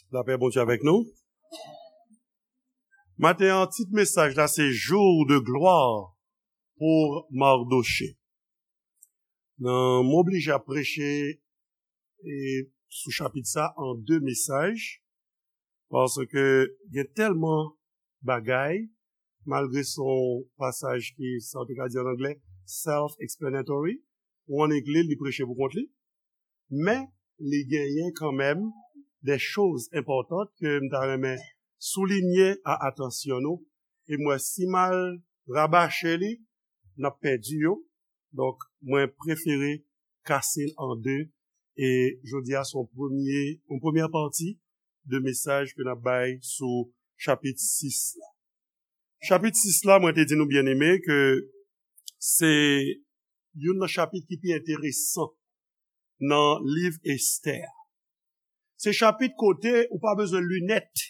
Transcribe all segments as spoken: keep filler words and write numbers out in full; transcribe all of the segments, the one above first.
Lapè Bondye avèk nou. Maten an, tit mesaj la se Jour de gloire pour Mardochée. Nan, m oblije ap preche e sou chapit sa an de mesaj, paske gen tèlman bagay, malgre se yon pasaj ki, sa w te ka di an anglè, self-explanatory, ou annik li l, li preche pou kont li, men li genyen kanmenm de choz enpòtan ke m ta renmen soulinye a atansyon nou, e m wè si m al rabache li, n ap pèdi yo. Donk, mwen prefere kase l an de, e jodi a se yon premye, yon premyè pati de mesaj ke n ap bay sou chapit sis la. Chapit sis la, mwen te di nou byeneme ke se youn nan chapit ki pi enteresan nan liv Estè a. Se chapit kote ou pa bezwen linèt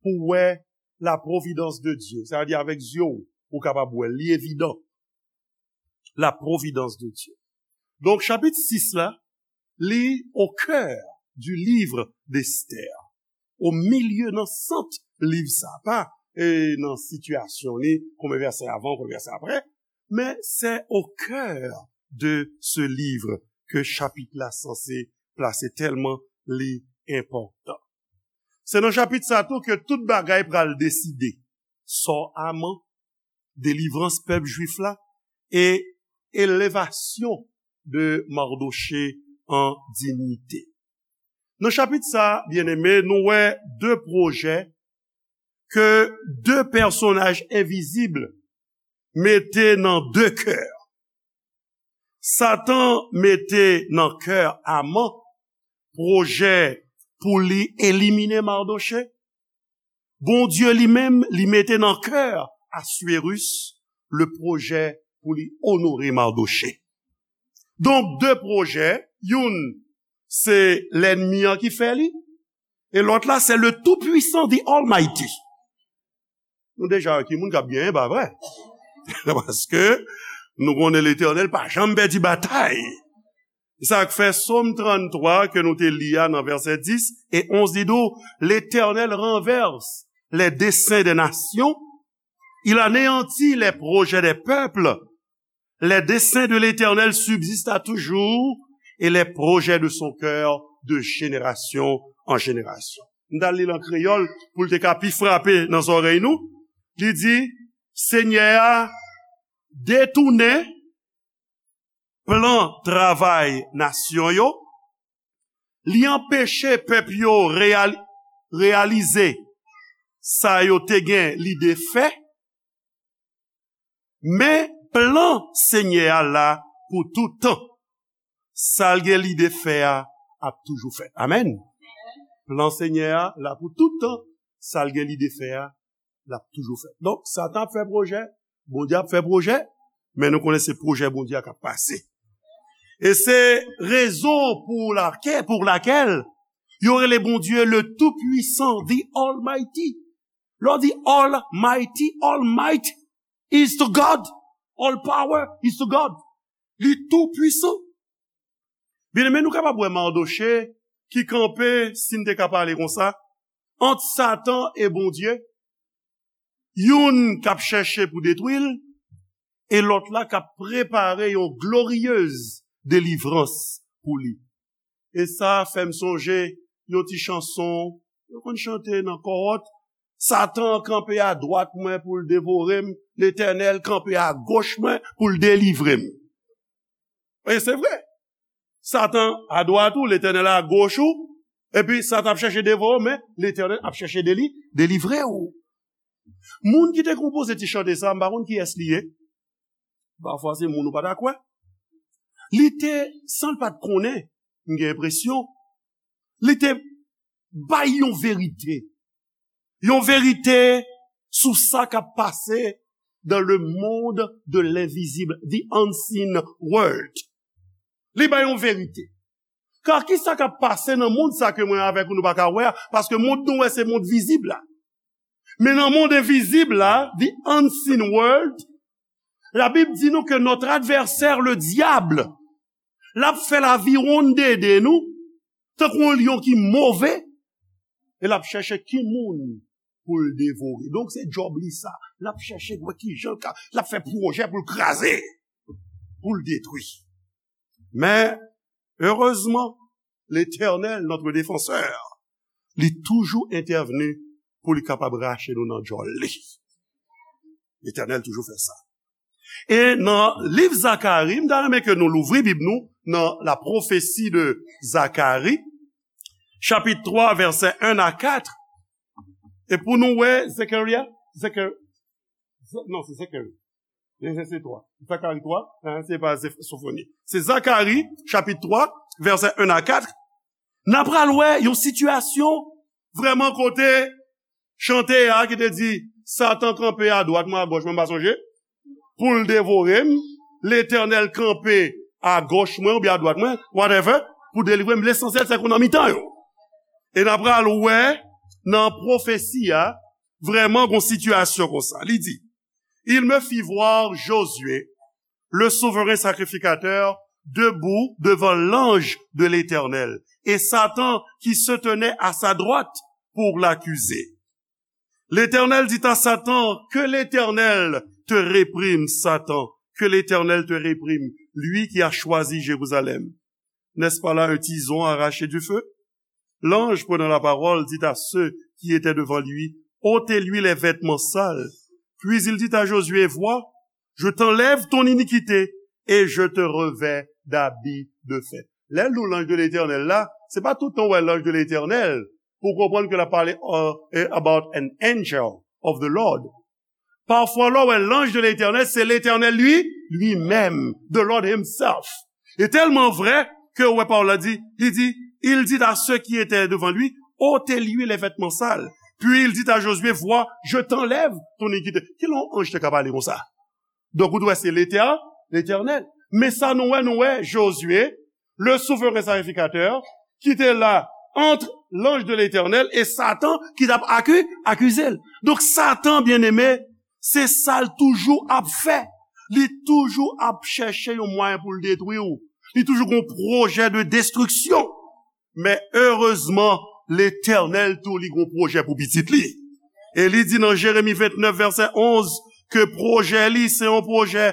pou wè la providence de Dieu. Sa vle di avèk zye w, ou kapab wè l, li evidan. La providence de Dieu. Donk, chapit sis la, li au cœur du livre d'Esther. O milye, nan sant liv sa, pa e nan sitiyasyon li, konbyen vèsè avan, konbyen vèsè apre, men c'est au cœur de ce livre ke chapit la sanse plase tèlman li enpòtan. Se nan chapit sa tou ke tout bagay pral deside. Sò Aman, delivrans pèp jwif la, e elevasyon de Mardochée an diyite. Nan chapit sa, byeneme, nou wè de pwojè ke de pèsonaj envizib mete nan de kè. Satan mete nan kè Aman pwojè pou li elimine Mardochée. Bondye li menm, li mete nan kè Aswirus le pwojè pou li onore Mardochée. Donk, de pwojè, youn se lènmi an ki fè li, e lòt la se le Tout-Puissant, the Almighty. Nou deja wè ki moun k ap genyen, pa vre? Paske nou konnen Letènèl pa janm pèdi batay. Se sa k fè Sòm tranntwa ke nou te li a nan vèsè dis e onz, li di w, L'Éternel renverse les desseins des nations, il anéantit les projets des peuples. Les desseins de l'Éternel subsistent à toujours, et les projets de son cœur de génération en génération. M ta li l an kreyòl pou l te ka pi frape nan zòrèy nou. Li di, Senyè a detounen plan travay nasyon yo, li anpeche pèp yo reyal-, reyalize sa yo te gen lide fè, men plan Senyè a la pou tout tan. Sa l gen lide fè a ap toujou fèt. Amèn. Plan Senyè a la pou tout tan. Sa l gen lide fè a, l ap toujou fèt. Donk, Satan ap fè pwojè, Bondye ap fè pwojè, men nou konnen se pwojè Bondye a k ap pase. E se rezon pou lakè-, pour laquelle yo rele Bondye le Tout-Puissant, the Almighty. Lè w di Almighty, all might is to God. All power is to God. Li tou pwisan. Byeneme, nou kapab wè Mardochée ki kanpe, si n te ka pale konsa, ant Satan e Bondye. Youn k ap chèche pou detwi l, e lòt la k ap prepare yon gloriyez delivrans pou li. E sa fè m sonje yon ti chanson yo konn chante nan kòwòt, Satan kanpe adwat mwen pou l devore m, Letènèl kanpe agoch mwen pou l delivre m. E se vre. Satan adwat ou, Letènèl agoch ou, epi Satan ap chèche devore w, men Letènèl ap chèche deli-, delivre w. Moun ki te konpoze ti chante sa, m pa konn kiyès li ye. Pafwa se moun ou pa ta kwè. Li te, san l pa t konnen, m gen enpresyon, li te bay yon verite. Yon verite sou sa k ap pase dans le monde de l'invisible, the unseen world. Li bay yon verite. Ka ki sa k ap pase nan mond sa ke mwen avèk ou nou pa ka wè a? Paske mond nou wè se mond vizib la. Men nan mond envizib la, the unseen world, Labib di nou ke notre adversaire, le diable, l ap fè laviwonn dede nou, tankou yon lyon ki move, e l ap chèche ki moun pou l devore. Donk, se djòb li sa. L ap chèche wè ki jan l ka, l ap fè pwojè pou l kraze, pou l detwi. Men, erezman, Letènèl, notre défenseur, li toujou entèvni pou li kapab rache nou nan djòl li. Letènèl toujou fè sa. E nan liv Zakari, m ta renmen ke nou louvri Bib nou nan la prophétie de Zacharie, chapitre trois, versets un à quatre. E pou nou wè Zechariah, Zechar-, Ze-, non, se Zekari. Se, se, se twa. Zakari twa, hein, se pa Zef-, Sofoni. Se Zakari, chapit twa, vèsè en a kat. N a pral wè yon sitiyasyon vrèman kote chante a ki te di, Satan kanpe adwat mwen, agòch mwen, m pa sonje, pou l devore m. Letènèl kanpe agòch mwen oubyen adwat mwen, whatever, pou delivre m. Lesansyèl, se ke w nan mitan yo. E n a pral wè nan pwofesi a, vrèman gon sitiyasyon konsa. Li di, Il me fit voir Josué, le souverain sacrificateur, debout devant l'ange de l'Éternel, et Satan qui se tenait à sa droite pour l'accuser. L'Éternel dit à Satan, Que l'Éternel te réprime, Satan, que l'Éternel te réprime, lui qui a choisi Jérusalem. N'est-ce pas là un tison arraché du feu? L'ange, prenant la parole, dit à ceux qui étaient devant lui, Ôtez-lui les vêtements sales. Puis il dit à Josué, Vois, je t'enlève ton iniquité et je te revêts d'habits de fer. Lè l di w l'ange de l'Éternel la, se pa tout tan w wè l'ange de l'Éternel pou w konprann ke l ap pale, uh, about an angel of the Lord. Pafwa, lè w wè l'ange de l'Éternel, se Letènèl li, li menm, the Lord himself. E tèlman vrè ke w wè pawòl la di, li di, Il dit à ceux qui étaient devant lui, Ôtez-lui les vêtements sales. Puis il dit à Josué, Vois, je t'enlève ton iniquité. Ki lè yon anj te ka pale konsa? Donk, ou t wè se Letè-, Letènèl. Men sa nou wè, nou wè Josué, le souverain sacrificateur, ki te la ant l'ange de l'Éternel e Satan ki t ap aki-, akize l. Donk, Satan, byeneme, se sa l toujou ap fè. Li toujou ap chèche yon mwayen pou l detwi w. Li toujou gon pwojè de destriksyon. Men erezman, Letènèl tou li gon pwojè pou pitit li. E li di nan Jeremi vennèf, vèsè onz, ke pwojè li se yon pwojè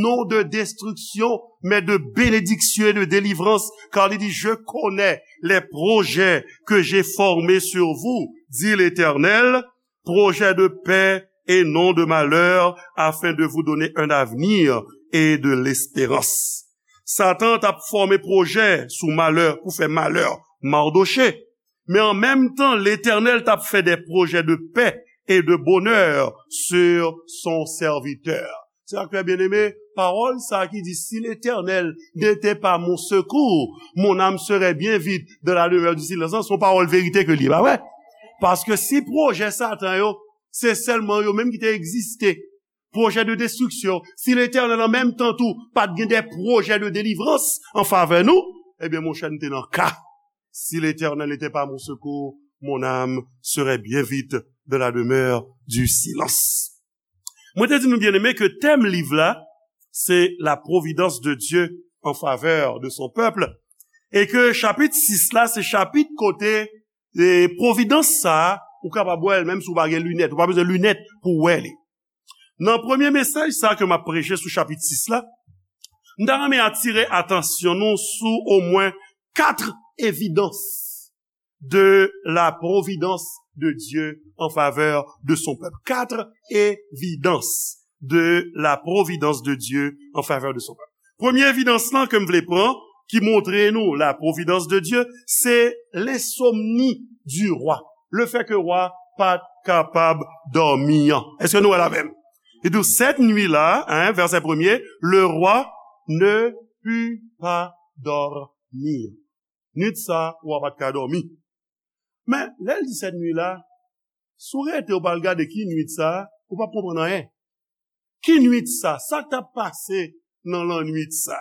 non de destriksyon, men de benediksyon e de delivrans, kar li di, Je connais les projets que j'ai formés sur vous, dit l'Éternel, projets de paix et non de malheur, afin de vous donner un avenir et de l'espérance. Satan t ap fòme pwojè sou malè, pou fè malè Mardochée. Men an menm tan, Letènèl t ap fè des projets de paix et de bonheur sur son serviteur. Sè ak frè byeneme, pawòl sa ki di, Si l'Éternel n'était pas mon secours, mon âme serait bien vite dans la demeure du silence, se yon pawòl verite ke li ye, pa vre? Paske si pwojè Satan yo, se sèlman yo menm ki te egziste, pwojè de destriksyon, si Letènèl an menm tan tou pa t gen de pwojè de delivrans an favè nou, ebyen, monchè, nou te nan ka. Si l'Éternel n'était pas mon secours, mon âme serait bien vite dans la demeure du silence. Mwen te di nou, byeneme, ke tèm liv la, se la providence de Dieu en faveur de son peuple, e ke chapit sis la, se chapit kote, e, pwovidans sa a, ou kapab wè l, menm si w pa gen linèt, ou pa bezwen linèt pou w wè li. Nan premye mesaj sa ke m ap preche sou chapit sis la, m ta renmen atire atansyon nou sou omwen kat evidans de la providence de Dieu en faveur de son peuple. Quatre évidences de la providence de Dieu en faveur de son peuple. Premye evidans lan ke m vle pran, ki montre nou la providence de Dieu, se l'insomnie du roi. Le fait que wa pa t kapab dòmi an. Èske nou wè l avè m? Li di, cette nuit-là, hein, verset premier, le roi ne put pas dormir. Nuit sa, wa pa t ka dòmi. Men, lè l di cette nuit-là, si w rete, w pa al gade ki nuit sa, ou p ap konprann anyen. Ki nuit sa? Sa k t ap pase nan lannwit sa?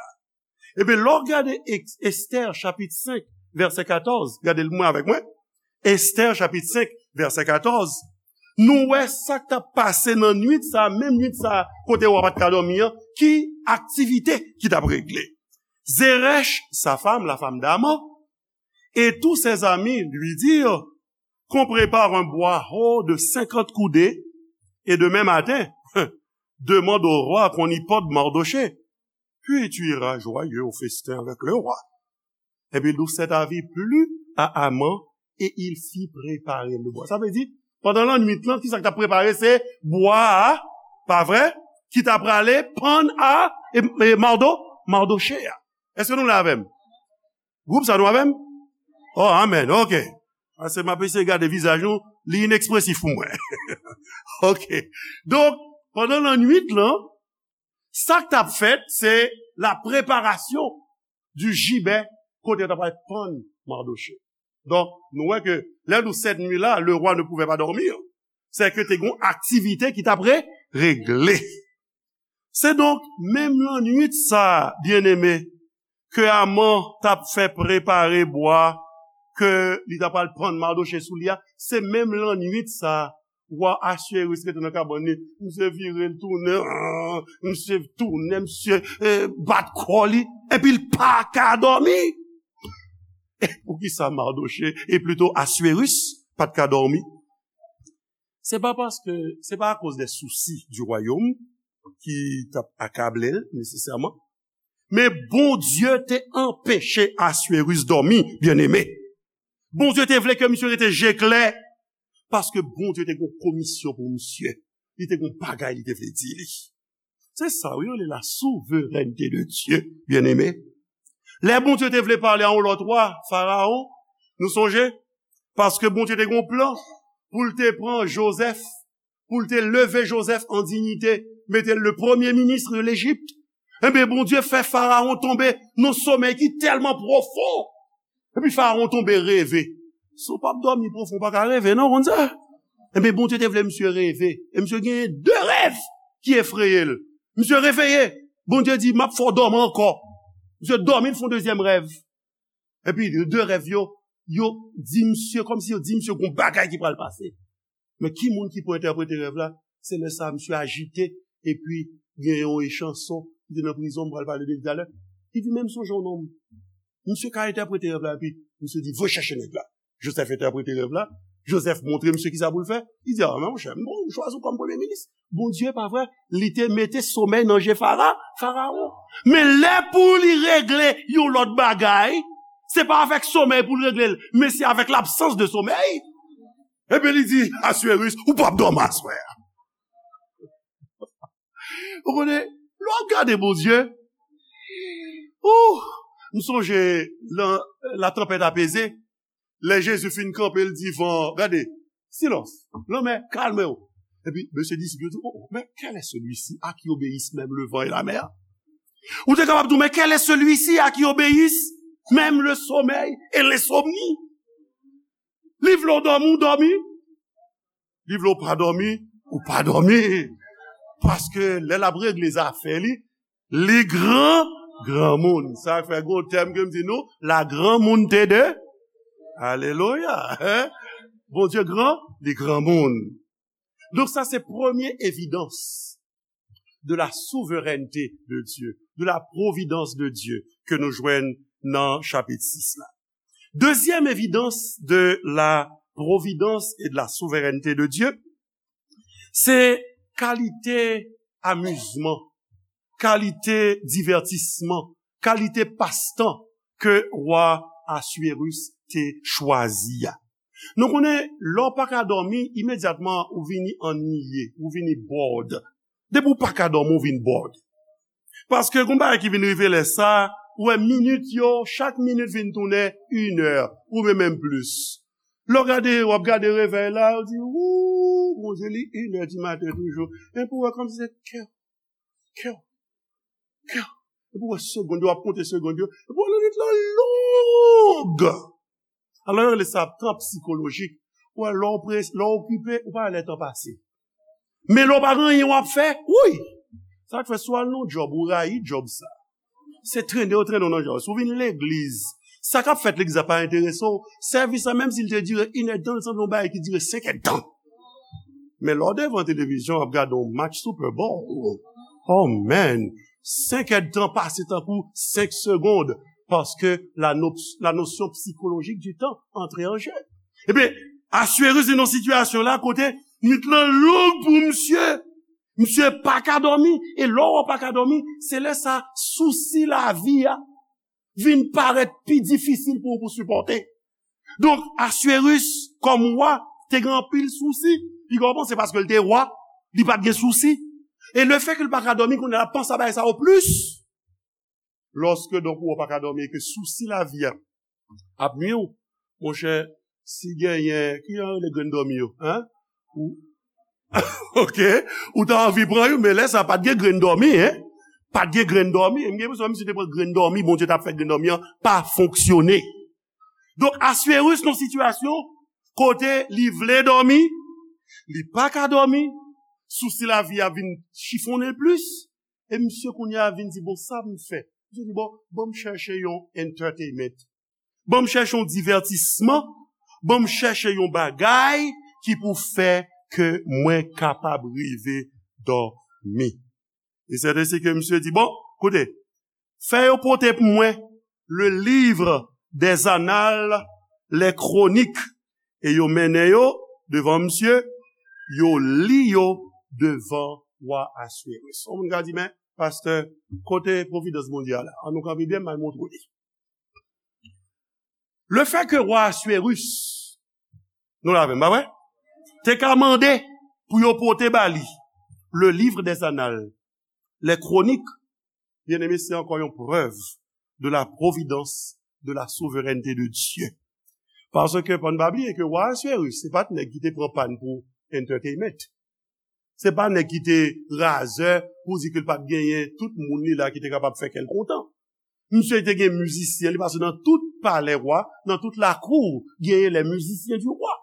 Ebyen, lè w gade Ex-, Esther chapit senk, vèsè katòz, gade l mwen avèk mwen. Esther chapit senk, vèsè katòz. Nou wè sa k t ap pase nan nwit sa, menm nwit sa, kote wa pa t ka dòmi an, ki aktivite ki t ap regle. Zeresh, sa femme, la femme d'Aman, et tous ses amis lui dirent, qu'on prépare un bois haut de cinquante coudées, et demain matin, demande au roi qu'on y pende Mardochée. Puis tu iras joyeux au festin avec le roi. Epi li di, cet avis plut à Haman et il fit préparer le bois. Sa vle di, pandan lannwit lan, ki sa k t ap prepare? Se bwa a, pa vre? Ki t ap prale pann a, e, e Mardo, Mardoche a. Èske nou la avè m? Gwoup sa, nou avè m? Oh, amèn, ok. Paske m ap eseye gade vizaj nou, li inekspresif pou mwen. Ok. Donk, pandan lannwit lan, sa k t ap fèt, se la préparation du gibet kote yo t ap al pann Mardoche. Donk, nou wè ke lè nou sèt nwi la, le roi ne pouvait pas dormir. Se ke te gon aktivite ki t ap re-, regle. Se donk, menm lannwit sa, byeneme, ke Aman t ap fè prepare bwa, ke li t ap al pann Mardoche sou li a, se menm lannwit sa, wa Aswéris rete nan kabann li, misye vire l tounen, ah, misye tounen, misye, eh, bat kò li, epi l pa ka dòmi. E poukisa Mardoche, e plito Aswéris, pa t ka dòmi? Se pa paske, se pa akoz de sousi du royaume ki t ap akable l, nesesèman. Men Bondye te anpeche Aswéris dòmi, byeneme. Bondye te vle ke misye rete je klè, paske Bondye te gon komisyon pou misye. Li te gon bagay li te vle di li. Se sa, wi, yo rele la souveraineté de Dieu, byeneme. Lè Bondye te vle pale a yon lòt wa, Farawon, nou sonje? Paske Bondye te gon plan pou l te pran Jozèf, pou l te leve Jozèf an diyite, mete l le premier ministre de l'Égypte. Ebyen, Bondye fè Farawon tonbe nan somèy ki tèlman pwofon. Epi Farawon tonbe reve. Si w p ap dòmi pwofon, w pa ka reve, non, w konn sa? Ebyen, Bondye te vle misye reve. E misye genyen de rèv ki efreye l. Misye reveye. Bondye di, "M ap fè w dòmi ankò." Misye dòmi, l fè yon dezyèm rèv. Epi, de rèv yo, yo di misye, kòmsi yo di misye gon bagay ki pral pase. Men ki moun ki pou entèprete rèv la? Se lè sa a misye ajite, epi gen yon echanson ki te nan prizon, m pral pale de li talè. Li di, "Men m sonje yon nonm." Misye ka entèprete rèv la, epi misye di, "Voye chèche nèg la." Jozèf entèprete rèv la. Jozèf montre misye kisa pou l fè. Li di, "A, men monchè, m bon, m chwazi w kòm premye minis." Bondye, pa vre, li te mete somèy nan je Fara-, Farawon. Men lè pou li regle yon lòt bagay, se pa avèk somèy pou l regle l, men se avèk labsans de somèy. Ebyen, li di, "Aswéris, ou p ap dòmi aswè a." Ou konnen, lè w ap gade Bondye, ou, m sonje, la, la tempête apaisée, lè Jezi fin kanpe, l di van, "Gade, silence, lanmè, kalme w." Epi, mesye disip yo di, "Oh, oh, mais quel est celui-ci à qui obéissent même le vent et la mer?" Ou te kapab di, "Mais quel est celui-ci à qui obéissent même le sommeil et l'insomnie?" Li vle w dòmi, ou dòmi. Li vle w pa dòmi, ou pa dòmi. Paske lè l ap regle zafè li, li gran, granmoun. Sa fè gon tèm ke m di nou, la granmoun te de. Alelouya. Hein? Bondye gran, li granmoun. Donk sa se premye evidans de la souveraineté de Dieu, de la providence de Dieu ke nou jwenn nan chapit sis la. Dezyèm evidans de la providence et de la souveraineté de Dieu, se kalite amizman, kalite divètisman, kalite pastan ke wa Aswéris te chwazi a. Nou konnen, lè w pa ka dòmi, imedyatman ou vini anniye, ou vini bored. Depi w pa ka dòmi, ou vin bored. Paske gon bagay ki vin rive lè sa, ou wè minit yo, chak minit vin tounen inè, oubyen menm plis. Lè w gade, w ap gade revèy la, ou di, "Wou, Bondye, li inè di maten toujou." Epi w wè kòmsi se kè, kè, kè. Epi w wè segond yo, w ap konte segond yo. Epi w wè minit lan long. Alò, yo rele sa tan psikolojik. Ou wè, lè w pres-, lè w okipe, ou pa wè lè tan pase. Men lè w pa gen anyen w ap fè, wouy! Sa k fè si w al nan yon djòb, ou rayi djòb sa. Se trennen yo trennen w nan djòb. Si w vin legliz, sa k ap fèt legliz la pa enterese w, sèvis la, menm si l te dire inèdtan, l sanble yon bagay ki dire senkèdtan. Men lè w devan televizyon, w ap gade yon match Super Bowl. Oh man! Senkèdtan pase tankou senk segonn, paske la no-, la notion psychologique du temps entre en jeu. Ebyen, Aswerus vin nan sitiyasyon la kote nwit lan long pou misye. Misye pa ka dòmi. E lè w pa ka dòmi, se lè sa sousi lavi a vin parèt pi difisil pou ou pou sipòte. Donk, Aswerus, kòm wa, te gen anpil sousi. Piga w panse paske l te wa, li pa t gen sousi. E lefètke l pa ka dòmi, kounye a l ap panse a bagay sa yo plis. Lòske, donk, ou pa ka dòmi e ke sousi lavi a ap nwi w, monchè, si genyen, ki jan yo rele grenn dòmi yo, en? Ou, oke, ou ta anvi pran youn, men lè sa pa t gen grenn dòmi, en? Pa t gen grenn dòmi. M gen enpresyon si te pran grenn dòmi, Bondye t ap fè grenn dòmi an pa fonksyone. Donk, Aswerus nan sitiyasyon kote li vle dòmi, li pa ka dòmi, sousi lavi a vin chifonnen l plis, e misye kounye a vin di, "Bon, sa m fè?" Misye di, "Bon, ban m chèche yon entertainment. Ban m chèche yon divètisman. Ban m chèche yon bagay ki pou fè ke mwen kapab rive dòmi." E sèten se ke misye di, "Bon, koute, fè yo pote pou mwen le livre des annales, les chroniques." E yo mennen yo devan misye, yo li yo devan wa Aswerus. Yon moun ka di, "Men, pastè, kote pwovidans Bondye a la? An nou kanpe byen, m al montre w li." Lefètke wa Aswerus, nou la avè m, pa vre? Te ka mande pou yo pote ba li le livre des annales, les chroniques, byeneme, se ankò yon prèv de la providence, de la souveraineté de Dieu. Paske, pa n pa bliye ke wa Aswerus, se pa t nèg ki te pran pàn pou entertainment. Se pa nèg ki te razè pou di ke l pa t genyen tout moun li la ki te kapab fè kè l kontan. Misye te gen mizisyen li, paske nan tout palè wa, nan tout lakou, genyen les musiciens du roi.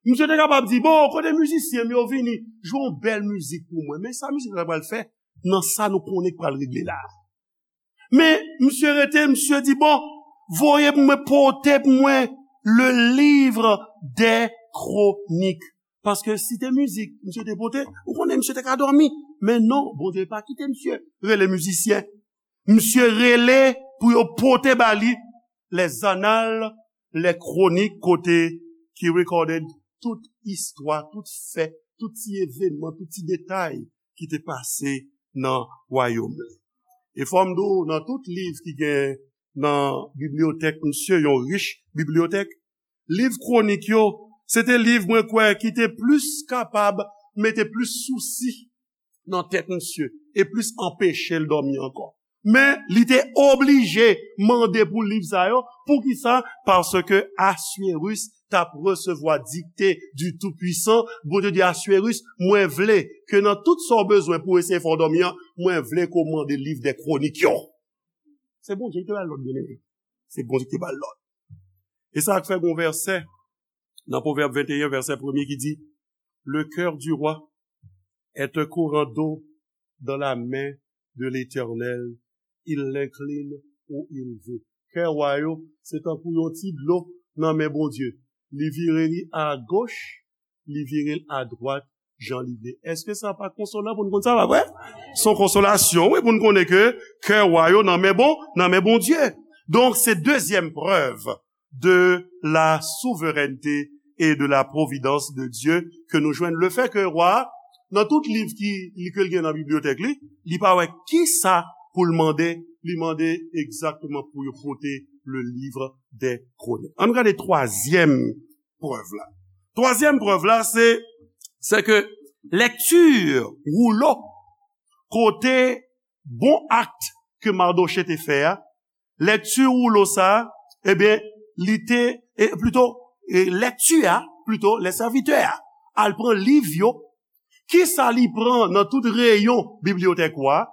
Misye te kapab di, "Bon, kote mizisyen m yo, vini, jwe yon bèl mizik pou mwen." Men sa mizik la pral fè nan sa nou konnen k pral regle la. Men misye rete, misye di, "Bon, voye pou mwen, pote pou mwen le livre des chroniques." Paske si te mizik misye te pote, ou konnen misye te ka dòmi. Men non, Bondye pa kite misye rele mizisyen. Misye rele pou yo pote ba li les annales, les chroniques, kote ki recorded tout istwa, tout fè, tout ti evènman, tout ti detay ki te pase nan wayòm li. E fò m di w, nan tout liv ki gen nan bibliyotèk misye, yon rich bibliyotèk, liv kwonik yo, se te liv mwen kwè ki te plis kapab mete plis sousi nan tèt misye e plis anpeche l dòmi ankò. Men, li te oblije mande pou liv sa yo. Poukisa? Paske Aswerus t ap resevwa dikte du Tout-Puissant. Bondye di Aswerus, "Mwen vle ke nan tout sa w bezwen pou eseye fè w dòmi an, mwen vle ke w mande liv dè kwonik yo." Se Bondye ki te ba l lòd, byeneme. Se Bondye ki te ba l lòd. E sa k fè gon vèsè nan Pwovèb venteyen, vèsè premye ki di, "Le cœur du roi est un courant d'eau dans la main de l'Éternel, il l'incline où il veut." Kè wa yo, se tankou yon ti dlo nan men Bondye. Li vire li agoch, li vire l adwat, jan li vle. Èske sa pa konsolan pou n konn sa, pa vre? Se yon konsolasyon, wi, pou n konnen ke kè wa yo nan men bon, nan men Bondye. Donk, se dezyèm prèv de la souveraineté et de la providence de Dieu ke nou jwenn. Lefètke wa, nan tout liv ki, li, ke l gen nan bibliyotèk li, li pa wè kisa pou l mande, li mande egzakteman pou yo pote le livre des chroniques. Ann gade twazyèm prèv la. Twazyèm prèv la, se, se ke lèkti woulo kote bon akt ke Mardochée te fè a, lèkti woulo sa, ebyen, li te, e, plito, e, lèkti a, plito, lè sèvitè a al pran liv yo, kisa li pran nan tout reyon bibliyotèk wa?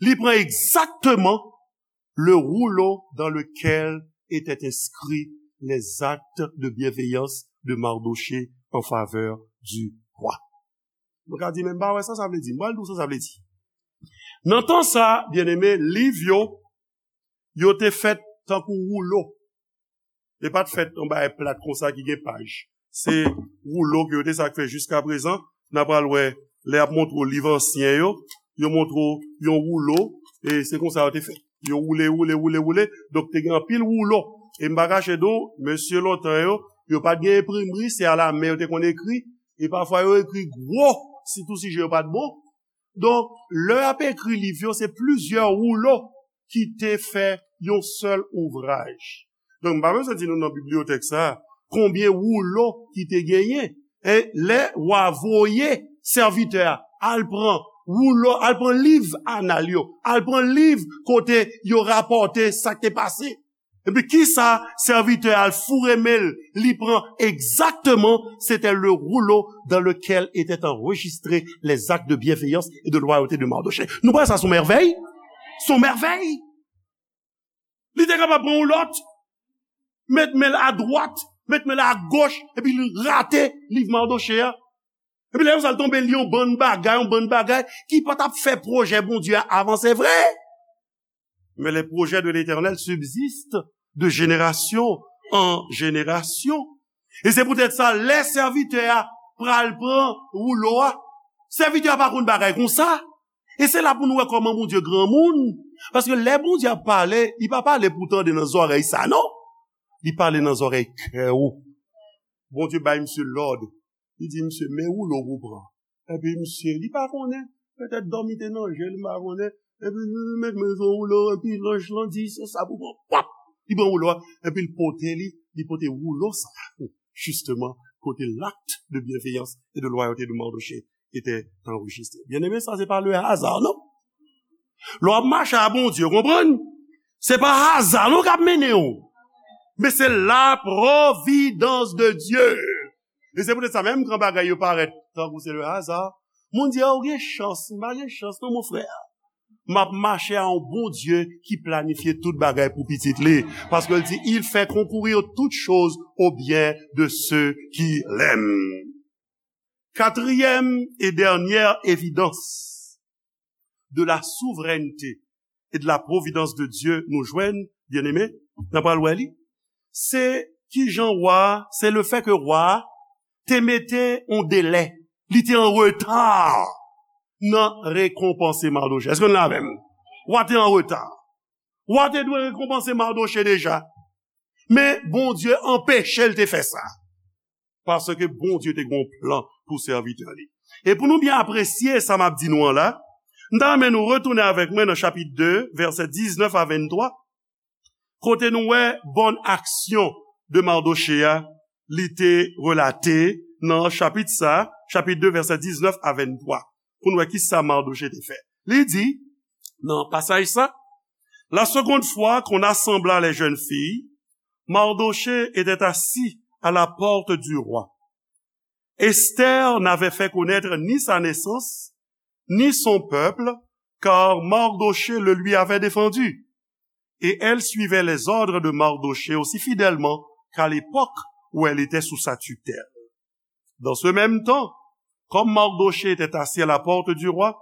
Li pran egzakteman le rouleau dans lequel étaient inscrits les actes de bienveillance de Mardochée en faveur du roi. Nou ka di, "Men m pa wè sa sa vle di." M pral di w sa sa vle di. Nan tan sa, byeneme, liv yo, yo te fèt tankou woulo. Li pa t fèt yon bagay plat konsa ki gen paj. Se woulo ke yo te sa k fè jiskaprezan. N a pral wè, lè y ap montre w liv ansyen yo, yo montre w yon woulo, e se konsa yo te fèt. Yo woule, woule, woule, woule. Donk, te gen anpil woulo. E m pa kache di w, mesye lontan yo, Yo pa t gen enprimri, se alamen yo te konn ekri. E pafwa yo ekri gwo, sitou sijè yo pa t bon. Donk, lè y ap ekri liv yo, se plizyè woulo ki te fè yon sèl ouvraj. Donk, m pa bezwen di nou nan bibliyotèk sa a, konbyen woulo ki te genyen. E lè wa voye sèvitè a, al pran woulo, al pran liv anal yo, al pran liv kote yo rapòte sa k te pase. Epi kisa sèvitè a al foure men l, li pran egzakteman, c'était le rouleau dans lequel étaient enregistrés les actes de bienveillance et de loyauté de Mardochée. Nou wè sa se yon mèvèy? Se yon mèvèy! Li te kapab pran yon lòt, met men l adwat, met men l agoch, epi li rate liv Mardochée a. Epi lè konsa l tonbe li yon bann bagay, yon bann bagay ki pa t ap fè pwojè Bondye a avanse vre. Mais les projets de l'Éternel subsistent de génération en génération. E se poutèt sa, lè sèvitè a pral pran woulo a, sèvitè a pa konn bagay konsa. E se la pou nou wè kòman Bondye granmoun. Paske lè Bondye ap pale, li pa pale pou tande nan zòrèy sa, non. Li pale nan zòrèy kè ou. Bondye bay misye lòd. Li di misye, men woulo pou pran. Epi misye, li pa konnen, petèt dòmi te nan je l, m pa konnen. Epi li met men sou woulo, epi lanj lan di, se sa pou pran. Pap! Li pran woulo a, epi l pote li, li pote woulo sa a, justement, kote l'acte de bienveillance et de loyauté de Mardochée était enregistré. Byeneme, sa se pa le hasard, non? Lè w ap mache a Bondye, w konprann? Se pa haza non k ap mennen w, men se la providence de Dieu. E se poutèt sa, menm kan bagay yo parèt tankou se le hasard, moun di, "A, ou gen chans." M pa gen chans non, mon frè. M ap mache a yon Bondye ki planifye tout bagay pou pitit li. Paske l di, "Il fait concourir toutes choses au bien de ceux qui l'aiment." Quatrième et dernière évidence de la souveraineté et de la providence de Dieu nou jwenn, byeneme, n ap pral wè li, se kijan wa, se le fè ke wa te mete yon delè, li te an reta nan rekonpanse Mardochè. Èske nou la avè m? Wa te an reta. Wa te dwe rekonpanse Mardochè deja. Men Bondye anpeche l te fè sa. Paske Bondye te gen yon plan pou sèvitè li. E pou nou byen apresye sa m ap di nou an la, m ta renmen nou retounen avèk mwen nan chapit de, vèsè diznèf a venntwa, kote nou wè bòn aksyon de Mardochè a, li te relate nan chapit sa, chapit de, vèsè diznèf a venntwa, pou nou wè kisa Mardochè te fè. Li di, nan pasaj sa, La seconde fois qu'on assembla les jeunes filles, Mardochée était assis à la porte du roi. Esther n'avait fait connaître ni sa naissance, ni son peuple, car Mardochée le lui avait défendu. Et elle suivait les ordres de Mardochée aussi fidèlement qu'à l'époque où elle était sous sa tutelle. Dans ce même temps, comme Mardochée était assis à la porte du roi,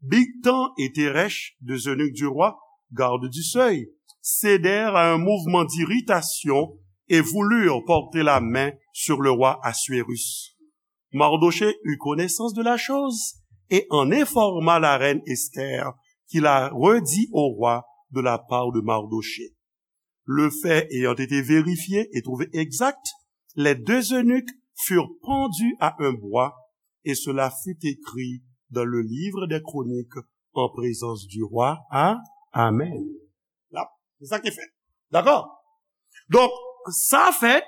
Bigtan et Teresh, deux eunuques du roi, gardes du seuil, cédèrent à un mouvement d'irritation et voulurent porter la main sur le roi Assuérus. Mardochée eut connaissance de la chose et en informa la reine Esther, qui la redit au roi de la part de Mardochée. Le fait ayant été vérifié et trouvé exact, les deux eunuques furent pendus à un bois, et cela fut écrit dans le livre des Chroniques en présence du roi. A, amèn. La, se sa ki fèt. Dakò? Donk, sa fèt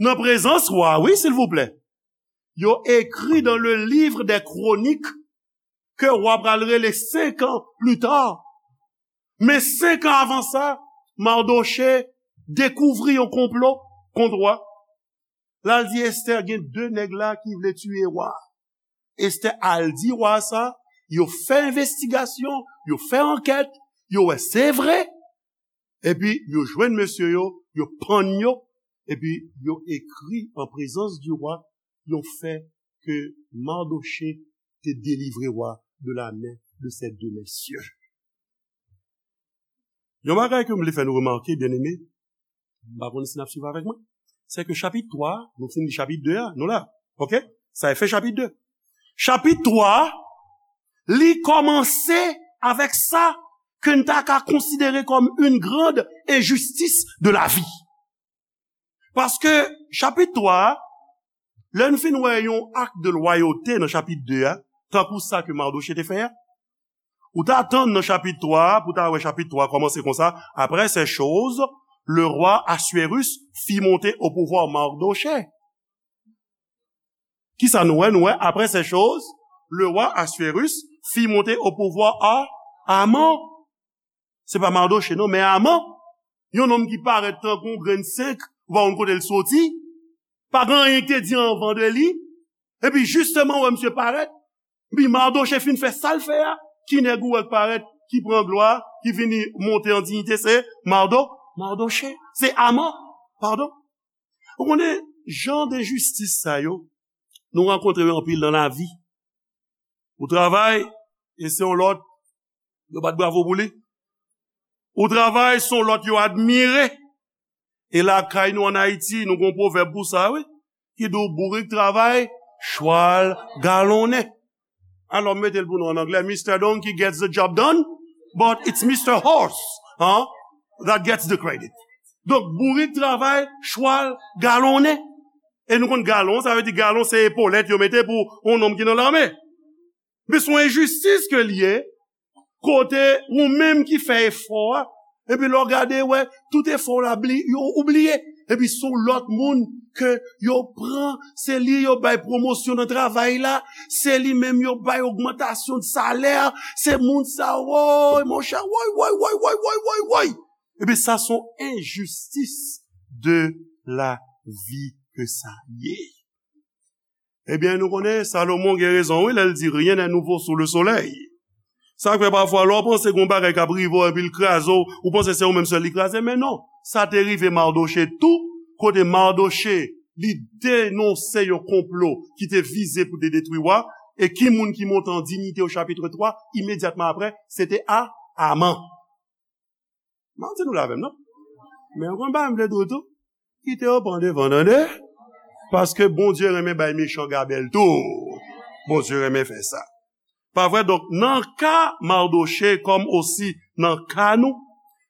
nan prezans wa, wi, silvouplè. Yo ekri dans le livre des Chroniques ke wa pral rele senk an pli ta. Men senk an avan sa, Mardochè dekouvri yon konplo kont wa. L al di Estè, "Gen de nèg la ki vle tiye wa." Estè al di wa sa, yo fè envestigasyon, yo fè ankèt, yo wè se vre. Epi yo jwenn mesye yo, yo pann yo, epi yo ekri an prezans di wa yon fè ke Mardochè te delivre wa de la men de ces deux messieurs. Yon bagay ke m vle fè nou remake, byeneme, m pa konn si n ap swiv avèk mwen, se ke chapit twa, nou fin li chapit de a, nou la, oke? Sa e fen chapit de. Chapit twa, li kòmanse avèk sa ke n ta ka konsidere kòm une grande injustice de la vie. Paske chapit twa a, lè n fin wè yon ak de lwayote nan chapit de a, tankou sa ke Mardochée te fè a, ou ta tann nan chapit twa a, pou ta wè chapit twa a kòmanse konsa, Après ces choses, le roi Assuérus fit monter au pouvoir Mardochée. Kisa nou wè? Nou wè, après ces choses, le roi Assuérus fit monter au pouvoir à Haman. Se pa Mardochée, non, men Haman. Yon nonm ki parèt tankou yon grenn senk, ou pa konn kote l soti. Pa gen anyen ki te di anvan de li. Epi, jisteman, ou wè misye parèt. Epi, Mardochée fin fè sa l fè a. Ki nèg ou wè k parèt, ki pran glwa, ki vini monte an diyite, se Mardo, Mardochée. Se Haman, padon. Ou konnen, jan de enjistis sa yo, nou rankontre yo anpil nan lavi. Ou travay, e se yon lòt, yo bat bravo pou li. Ou travay, se yon lòt yo admire. E lakay nou ann Ayiti, nou gen yon pwovèb pou sa, wi. Ki di w bourik travay, chwal galonnen. Alò, m mete l pou nou an anglè, Mister Donkey gets the job done, but it's Mister Horse, hein, that gets the credit. Donk, bourik travay, chwal galonnen. E nou konn galon, sa vle di galon se epolèt yo mete pou yon nonm ki nan lame. Men se yon enjistis ke l ye, kote ou menm ki fè efò a, epi lè w gade, wè, tout efò w la, bli-, yo, ou bliye. Epi se yon lòt moun ke yo pran, se li yo bay pwomosyon nan travay la, se li menm yo bay ogmantasyon de salè, se moun sa, woy, monchè, woy, woy, woy. Epi sa se yon enjistis de lavi ke sa ye. Ebyen, nou konnen, Salomon gen rezon, wi, lè l di, rien n'est nouveau sous le soleil. Sa k fè pafwa, lè w panse gen yon bagay k ap rive w epi l kraze w, ou panse se ou menm sèl li kraze, men non. Sa te rive Mardochée tou, kote Mardochée, li denonse yon konplo ki te vize pou te detwi wa, e ki moun ki monte an diyite o chapit twa, imedyatman apre, se te A-, Haman. M ap di nou la avè m, non? Men w konn pa m vle di w tou. Kite yo pran devan, tande? Paske Bondye renmen bay mechan gabèl tou. Bondye renmen fè sa. Pa vre? Donk, nan ka Mardochée, kòm osi nan ka nou,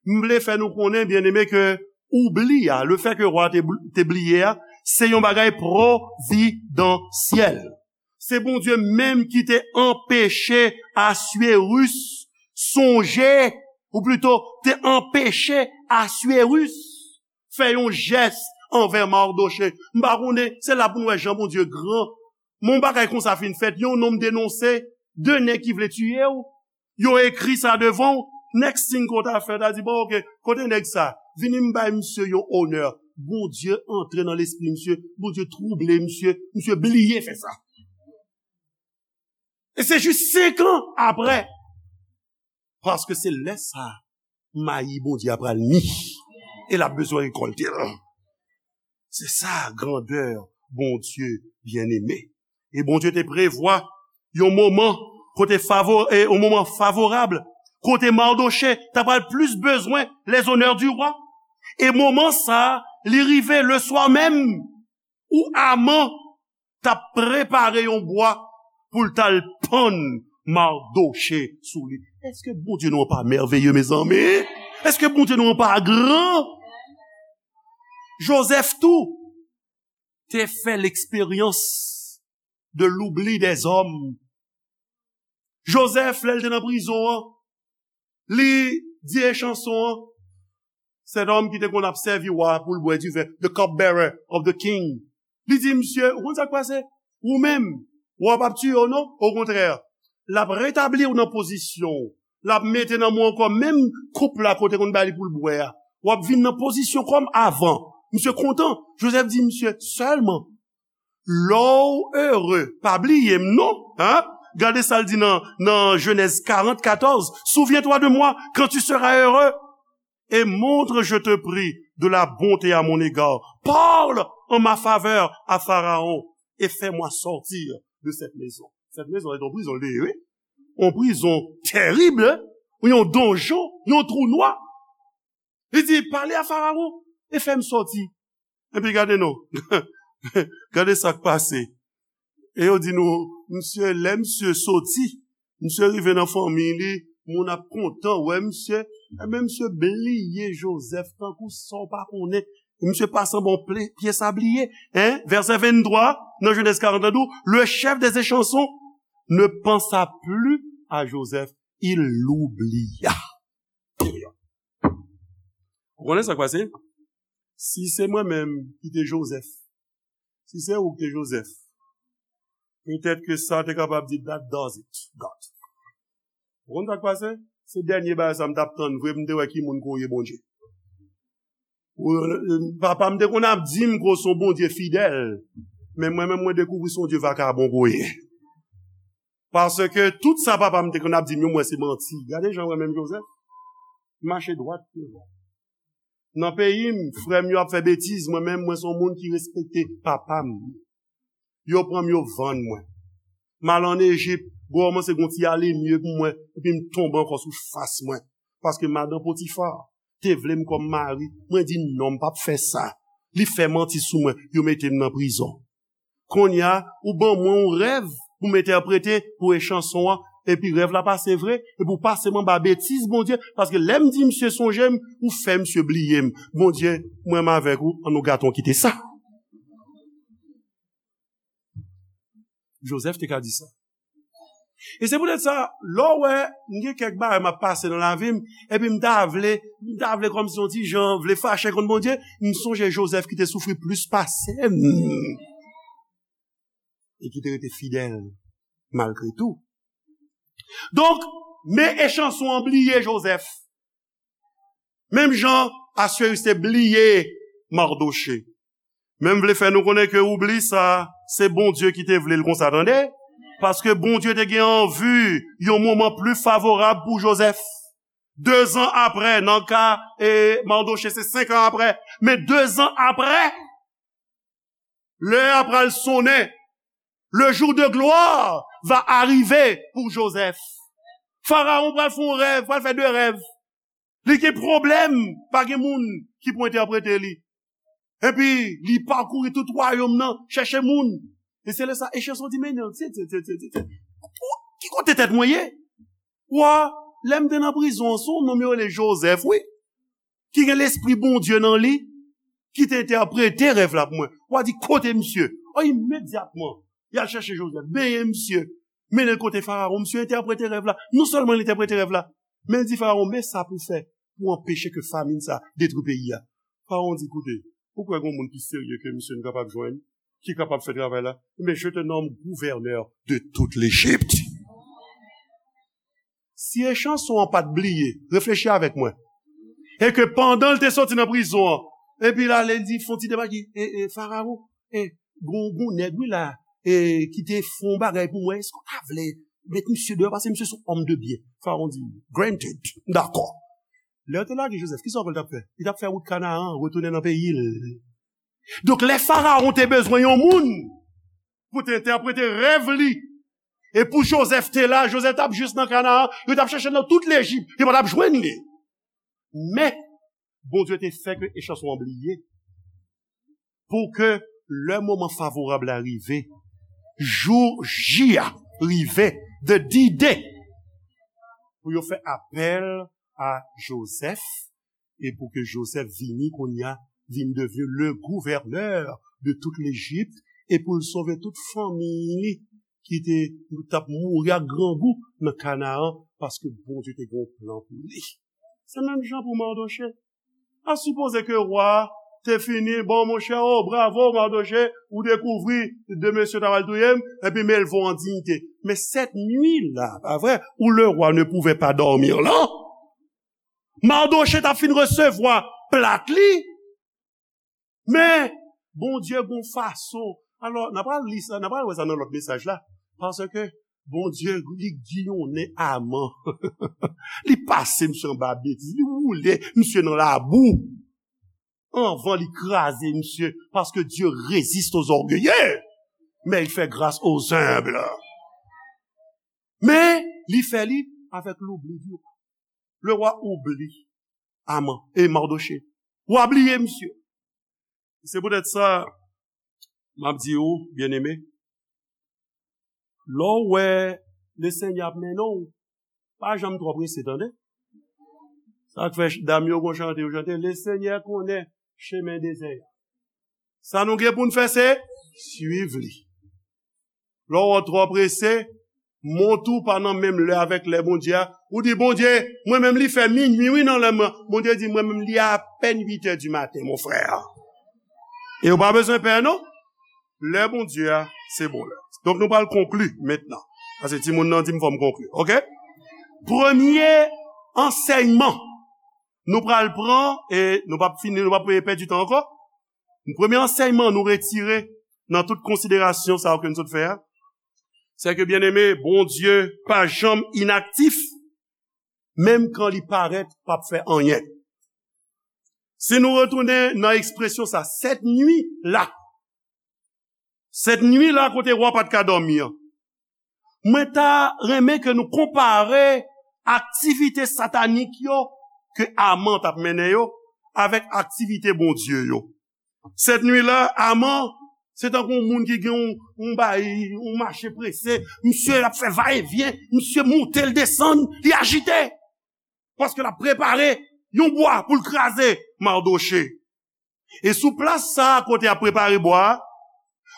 m vle fè nou konnen, byeneme, ke oubli a, le fè ke wa te bl-, te bliye a, se yon bagay pwovidansyèl. Se Bondye menm ki te anpeche Assuérus sonje, ou plito, te anpeche Assuérus fè yon jès anvè Mardochée. M pa konnen, se la pou n wè jan Bondye gran. Men yon bagay konsa fin fèt, yon nonm denonse de nèg ki vle tiye w. Yo ekri sa devan w. Next thing ke w ta fè, w ta di, bon, oke, kote nèg sa? Vini m bay misye yon onè. Bondye antre nan lespri misye, Bondye twouble misye, misye bliye fè sa. E se jis senk an apre. Paske se lè sa a, mayi Bondye a pral mi. E l ap bezwen rekòlte l. Se sa grandè Bondye byeneme. E Bondye te prevwa yon moman kote favo-, e yon moman favorab, kote Mardochée ta pral plis bezwen les honneurs du roi. E moman sa a, li rive le swa menm ou Haman t ap prepare yon bwa pou l t al pann Mardochée sou li. Èske Bondye nou an pa mèveye, mezanmi? Èske Bondye nou an pa gran? Jozèf tou te fè leksperyans de l'oubli des hommes. Jozèf, lè l te nan prizon an, li di e chanson an, cet homme ki te konn ap sèvi wa pou l bwè diven, the cupbearer of the king. Li di, misye, ou konn sa k pase? Ou menm, wa p ap tiye w non, okontrè, l ap retabli w nan pozisyon w. L ap mete nan men w ankò menm koup la ke w te konn ba li pou l bwè a. W ap vin nan pozisyon kòm avan. Misye kontan. Jozèf di misye, sèlman, lè w ere, pa bliye m non, hein? Gade sa l di nan, nan Jenèz karant katòz, souviens-toi de moi quand tu seras heureux et montre, je te prie, de la bonté à mon égard. Parle en ma faveur à Pharaon et fais-moi sortir de cette maison. Cette maison est en prison, li ye, wi. Yon prizon tèrib, wi, yon donjon, yon twou nwa. Li di, pale a Farawon e fè m sòti. Epi gade non. Gade sa k pase. E yo di nou, misye, lè misye soti, misye rive nan fanmi li, moun ap kontan wè misye. Ebyen, misye bliye Jozèf tankou sa w pa konnen. Misye pase anba yon pye sabliye. Hein? Vèsè venntwa, nan Genèse quarante, la di w, le chef des échansons ne pensa plus à Joseph, il l'oublia. Ou konnen sa k pase? Si se mwen menm ki te Joseph, si se ou ki te Joseph, petèt ke sa te kapab di, "That does it, God." Ou konn sa k pase? Se dènye bagay sa m t ap tann vre, m te wè ki moun ke w ye, Bondye. Ou, euh, papa m te konn ap di m ke w se yon Bondye fidèl, men mwen menm, mwen dekouvri se yon Dye vakabon ke w ye. Paske tout sa papa m te konn ap di m yo, m wè se manti. Gade jan mwen menm Joseph, m mache dwat devan. Nan peyi m, frè m yo ap fè betiz, mwen menm, mwen se yon moun ki respekte papa m. Yo pran m, yo vann mwen. M al ann Ejip, kòmanse gon ti ale mye pou mwen, epi m tonbe ankò sou fas mwen. Paske madan Potifa te vle m kòm mari, mwen di non, m p ap fè sa. Li fè manti sou mwen, yo mete m nan prizon. Kounye a, ou ban mwen yon rèv pou m entèprete pou echanson an, epi rèv la pase vre, epi w pase m anba betiz Bondye, paske lè m di misye sonje m, ou fè misye bliye m. Bondye, mwen menm avèk ou, ann nou gate yon kite sa. Joseph te ka di sa. E se poutèt sa, lè w wè m gen kèk bagay m ap pase nan lavi m, epi m ta vle, m ta vle kòmsi yon ti jan vle fache kont Bondye, m sonje Joseph ki te soufri plis pase m e ki te rete fidèl malgre tou. Donk, men echanson an bliye Joseph. Menm jan Asweri te bliye Mardoche. Men m vle fè nou konnen ke oubli sa, se Bondye ki te vle l konsa, tande? Paske Bondye te gen an vi yon moman pli favorab pou Joseph. Dezan apre, nan ka, e, Mardoche, se senk an apre, men dezan apre, lè a pral sonnen. Le jour de gloire va arriver pour Joseph. Farawon pral fè yon rèv, pral fè de rèv. Li gen pwoblèm, pa gen moun ki pou entèprete li. Epi, li pakouri tout wayòm nan, chèche moun. E se lè sa, echanson di, men non, se, se, se, se, se, se, ki kote tèt mwen ye? Wa, lè m te nan prizon an, se yon nonm yo rele Joseph, wi, ki gen lespri Bondye nan li, ki te entèprete rèv la pou mwen. Wa di, kote misye? O, imedyatman, y al chèche Joseph, benyen misye, mennen l kote Farawon. Misye entèprete rèv la. Non sèlman l entèprete rèv la, men l di Farawon, men sa pou w fè pou w anpeche ke famin sa a detwi peyi a. Farawon di, koute, ou kwè gen yon moun pi serye ke misye nou kapab jwenn, ki kapab fè travay la? Men je te nomme gouverneur de toute l'Égypte. Si echanson an pa t bliye, reflechi avèk mwen. E ke pandan l te soti nan prizon an, epi l ale, l di, fè yon ti deba ki, e, e, Farawon, e, gon, gon nèg, wi, la, e, ki te fè yon bagay pou mwen, èske w ta vle met misye deyò, paske misye se yon homme de bien? Farawon di, granted, m dakò. Lè yo te lage Joseph, kisa w kwè l t ap fè? Li t ap fè wout Kanaan, retounen nan peyi l. Donk, lè Farawon te bezwen yon moun pou te entèprete rèv li, e pou Joseph te la, Joseph t ap jis nan Kanaan, yo t ap chèche l nan tout Lejip, yo pa t ap jwenn li. Men, Bondye te fè ke echanson an bliye, pou ke lè moman favorab la rive, jou J a rive, the D-Day, pou yo fè apèl a Joseph, e pou ke Joseph vini kounye a, vin devni le gouverneur de toute l'Égypte, e pou l sove tout fanmi li ki te, t ap mouri ak grangou nan Kanaan, paske Bondye te gen yon plan pou li. Se menm jan pou Mardoche. A sipoze ke wa te fini, bon, monchè, o, bravo, Mardoche, ou dekouvri de mesye ta pral touye m, epi m elve w an diyite. Men cette nuit-là, pa vre, où le roi ne pouvait pas dormir là, Mardoche t ap fin resevwa plat li, men Bondye gon fason. Alò, n a pral li sa, n a pral wè sa nan lòt mesaj la. Paske Bondye, li giyonnen Aman. Li pase misye anba betiz, li woule misye nan labou. Anvan li kraze misye, paske Dieu résiste aux orgueilleux, mais il fait grâce aux humbles. Men, li fè li avèk l'oubli du roi. Le roi oublie Aman, e Mardoche. Wa bliye misye. Se poutèt sa, m ap di ou, byeneme, lè w wè Lesenyè ap mennen w, pa janm twò prese, tande. Sa k fè ch-, dam yo gon chante yo chante, Lesenyè konnen chemen dezè a. Sa nou gen pou n fè, se swiv li. Lè w wè w twò prese, mont ou pa nan menm lè avèk lè Bondye a. Ou di, "Bondye, mwen menm li fè minui, wi, nan lè mwen." Bondye di, "Mwen menm li apèn uit è di maten, mon frè." E ou pa bezwen pè, non. Lè Bondye a, se bon lè. Donk, nou pral konkli mentnan. Paske timoun nan di m fò m konkli, oke? Premye ansèyman nou pral pran, e nou p ap fini, nou p ap pèdi tan ankò. Premye ansèyman nou retire nan tout konsiderasyon sa yo ke nou sot fè a, se ke, byeneme, Bondye pa janm inaktif, menm kan li parèt p ap fè anyen. Si nou retounen nan ekspresyon sa, sèt nui la, sèt nui la kote wa pa t ka dòmi an, mwen ta renmen ke nou konpare aktivite satanik yo ke Aman t ap mennen yo avèk aktivite Bondye yo. Sèt nui la, Aman, se tankou yon moun ki gen yon, yon bay, yon mache prese. Misye ap fè va e vyen, misye moute, l desann, li ajite. Paske l ap prepare yon bwa pou l kraze Madoche. E sou plas sa a, kote y ap prepare bwa a,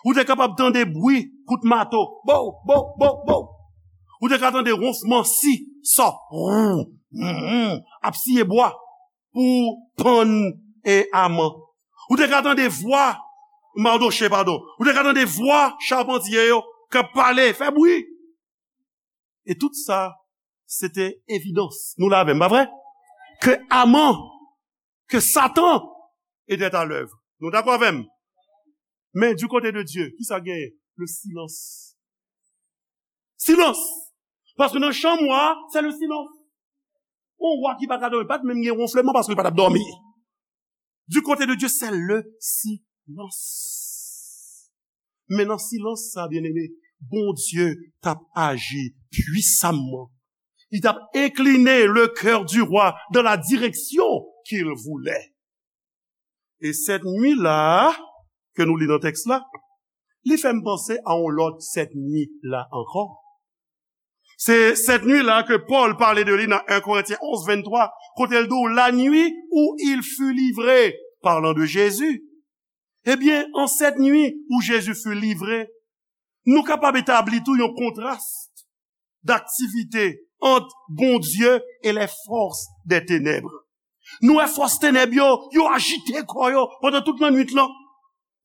ou te kapab tande bwi kout mato. Bow, bow, bow, bow. Ou te ka tande wonfman si, sò, wou, wou, ap siye bwa pou pann e Aman. Ou te ka tande vwa Madoche, padon. Ou te ka tande vwa chapantye yo k ap pale, fè bwi. E tout sa, se te evidans. Nou la avè m, pa vre? Ke Aman, ke Satan était à l'œuvre. Nou dakò avè m? Men, du côté de Dieu, ki sa genyen? Le silence. Silence! Paske nan chanm wa, se le silence. Yon wa ki pa ka dòmi, pa t menm gen wonfleman paske l pa t ap dòmi. Du côté de Dieu, c'est le silence. Men nan silans sa, byeneme, Bondye t ap aji pwisamman. Li t ap incliner le cœur du roi dans la direction qu'il voulait. E sèt nui la, ke nou li nan tèks la, li fè m panse a yon lòt sèt nui la ankò. Se sèt nui la ke Pòl pale de li nan en Korentyen onz venntwa, kote l di w, la nuit où il fut livré, parlant de Jésus. Ebyen, an sèt nui où Jésus fut livré, nou kapab etabli tou yon kontras daktivite ant Bondye e les forces des ténèbres. Nou wè fòs tenèb yo, yo ajite kò yo pandan tout lannwit lan,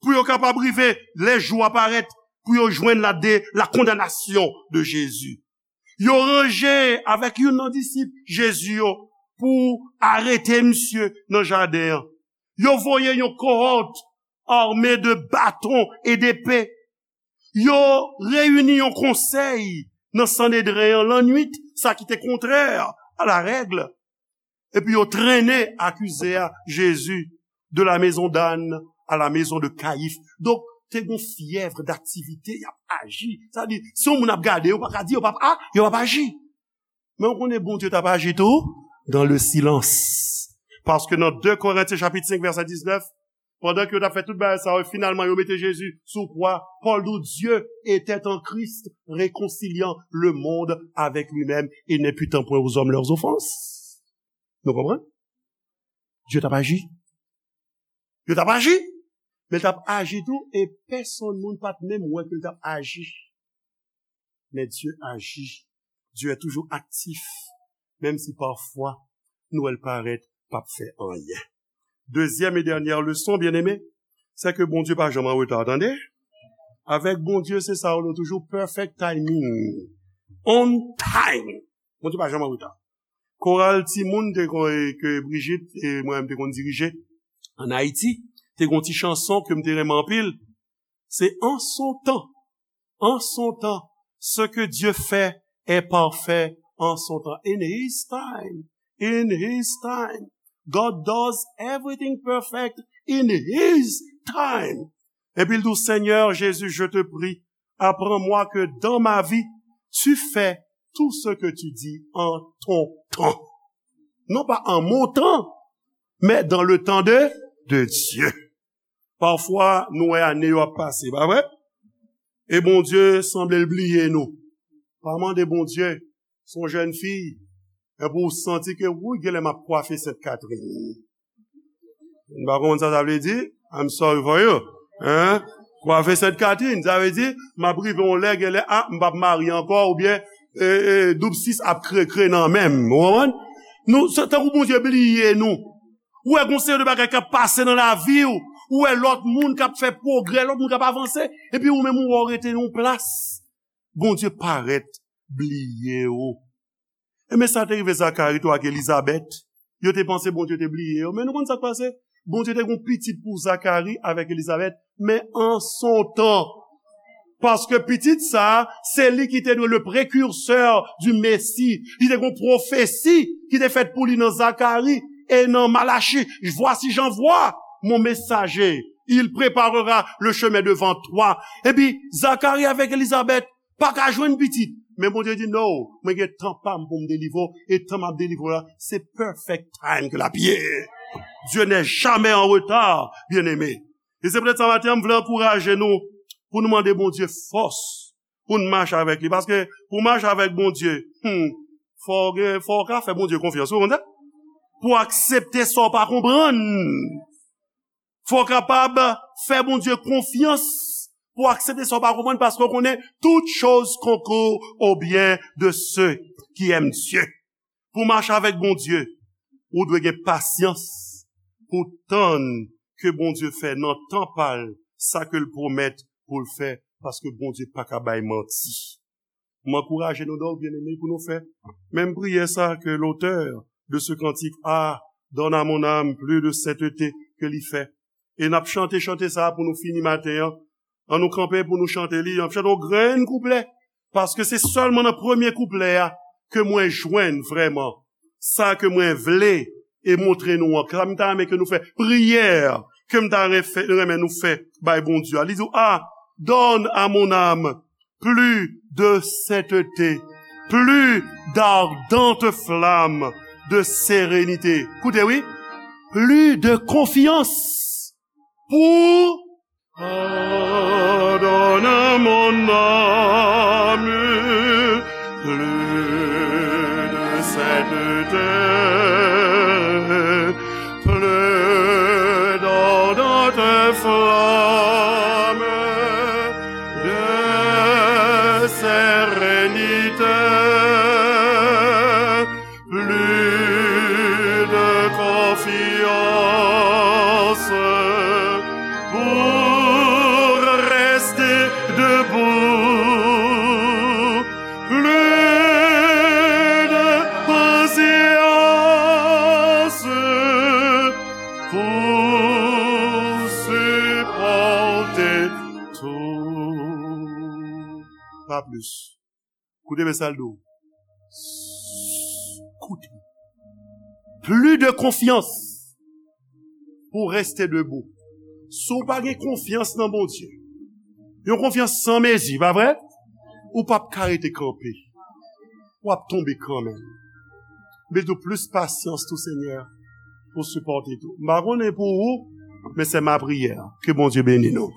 pou yo kapab rive lè jou a parèt, pou yo jwenn la de, la condamnation de Jésus. Yo ranje avèk youn nan disip Jezi yo pou arete misye nan jaden an. Yo voye yon kohòt ame de baton e depe. Yo reyini yon konsèy nan Sanedren an lannwit, sa ki te kontrè a la règle. Epi yo trennen akize a Jezi de la maison d'âne à la maison de Caïphe. Donk, te gen yon fyèv daktivite, y ap aji. Sa di, si yon moun ap gade, yo pa ka di, yo p ap, a, yo p ap aji. Men ou konnen Bondye t ap aji tou dans le silence. Paske nan de Korentyen chapit senk vèsè diznèf, pandan ke yo t ap fè tout bagay sa yo, finalman yo mete Jezi sou kwa, Pòl di w, Dieu était en Christ, réconciliant le monde avec lui-même, et n'imputant point aux hommes leurs offenses. Nou konprann? Dye t ap aji. Yo t ap aji. Men l t ap aji tou, e pèsonn moun pa t menm wè ke l t ap aji. Men Dye aji. Dye toujou aktif, menm si pafwa nou wè l parèt p ap fè anyen. Dezyèm e dènyè leson, byeneme, se ke Bondye pa janm an reta, tande. Avèk Bondye, se sa yo rele toujou perfect timing. On time. Bondye pa janm an reta. Koral timoun te kon, ke Brigitte e mwen menm te konn dirije ann Ayiti, te gen yon ti chanson ke m te renmen anpil. Se en son temps, en son temps, ce que Dieu fait est parfait en son temps. In his time, in his time. God does everything perfect in his time. Epi l di w, Seigneur Jésus, je te prie, apprends-moi que dans ma vie, tu fais tout ce que tu dis en ton temps. Non pas en mon temps, mais dans le temps de, de Dieu. Pafwa, nou wè ane yo ap pase, pa vre? E Bondye sanble l bliye nou. Pa mande Bondye, se yon jèn fi, epi w santi ke, wouy, genlè m ap kwafe Sent Katrin. M pa konprann sa sa vle di. I'm sorry for you. Hein? Kwafe Sent Katrin, sa vle di, m ap rive yon lè, gen lè, a, m p ap marye ankò, oubyen, e, e, doub sis ap kre, kre nan men m. Ou konprann? Nou, se tankou Bondye bliye nou. Ou wè gon seri de bagay k ap pase nan lavi w. Ou wè lòt moun k ap fè pwogrè, lòt moun k ap avanse. Epi ou menm ou wè w rete nan yon plas. Bondye parèt bliye w. Ebyen sa te rive Zakari tou ak Elizabèt. Yo te panse Bondye te bliye yo. Men nou konn sa k pase? Bondye te gon pitit pou Zakari avèk Elizabèt, men an son tan. Paske pitit sa, se li ki te dwe le prekirsè di Mesi. Li te gon pwofesi ki te fèt pou li nan Zakari e nan Malachi. Voici, j'envoie mon messager. Il préparera le chemin devant toi. Epi, Zakari avèk Elizabèt pa ka jwenn pitit. Men Bondye di, "No, mwen gen tan pa m pou m delivre w, e tan m ap delivre w la, se perfect time ke l ap ye." Dieu n'est jamais en retard, bien-aimé. E se poutèt sa maten an, m vle ankouraje nou pou nou mande Bondye fòs pou n mache avèk li. Paske pou mache avèk Bondye, hmm, fò w gen, fò w ka fè Bondye konfyans, ou konn sa? Pou aksepte sa w pa konprann. Fò w kapab fè Bondye konfyans pou w aksepte sa w pa konprann, paske w konnen, "Toutes choses concourent au bien de ceux qui aiment Dieu." Pou w mache avèk Bondye, ou dwe gen pasyans pou w tann ke Bondye fè nan tan pa l sa ke l pwomèt pou l fè, paske Bondye pa ka bay manti. M ankouraje nou donk, byeneme, pou nou fè menm priyè sa ke l'auteur de ce cantique a, "Donne à mon âme plus de sainteté" ke li fè. E n ap chante chante sa pou nou fini maten an. An nou kanpe pou nou chante li. N ap chante yon grenn kouplè. Paske se sèlman nan premye kouplè a ke mwen jwenn vrèman sa ke mwen vle e montre nou an. Sa m ta renmen ke nou fè. Priyè ke m ta renfè-, renmen nou fè bay Bondye a. Li di, "Ah, donne à mon âme plus de sainteté, plus d'ardente flamme de sérénité." Koute, wi. Plus de confiance pour Pardonne à mon âme plus de sainteté, plus d'ardente flamme de sérénité, plus de confiance pour rester debout, plus de patience pour supporter tout. Pas plus. Koute byen sa l di w. Koute. Plus de confiance pour rester debout. Si w pa gen konfyans nan Bondye, yon konfyans san mezi, pa vre? Ou p ap ka rete kanpe. W ap tonbe kanmenm. Bezwen plis pasyans tou, Senyè, pou sipòte tou. M pa konnen pou ou, men se ma priyè. Ke Bondye beni nou.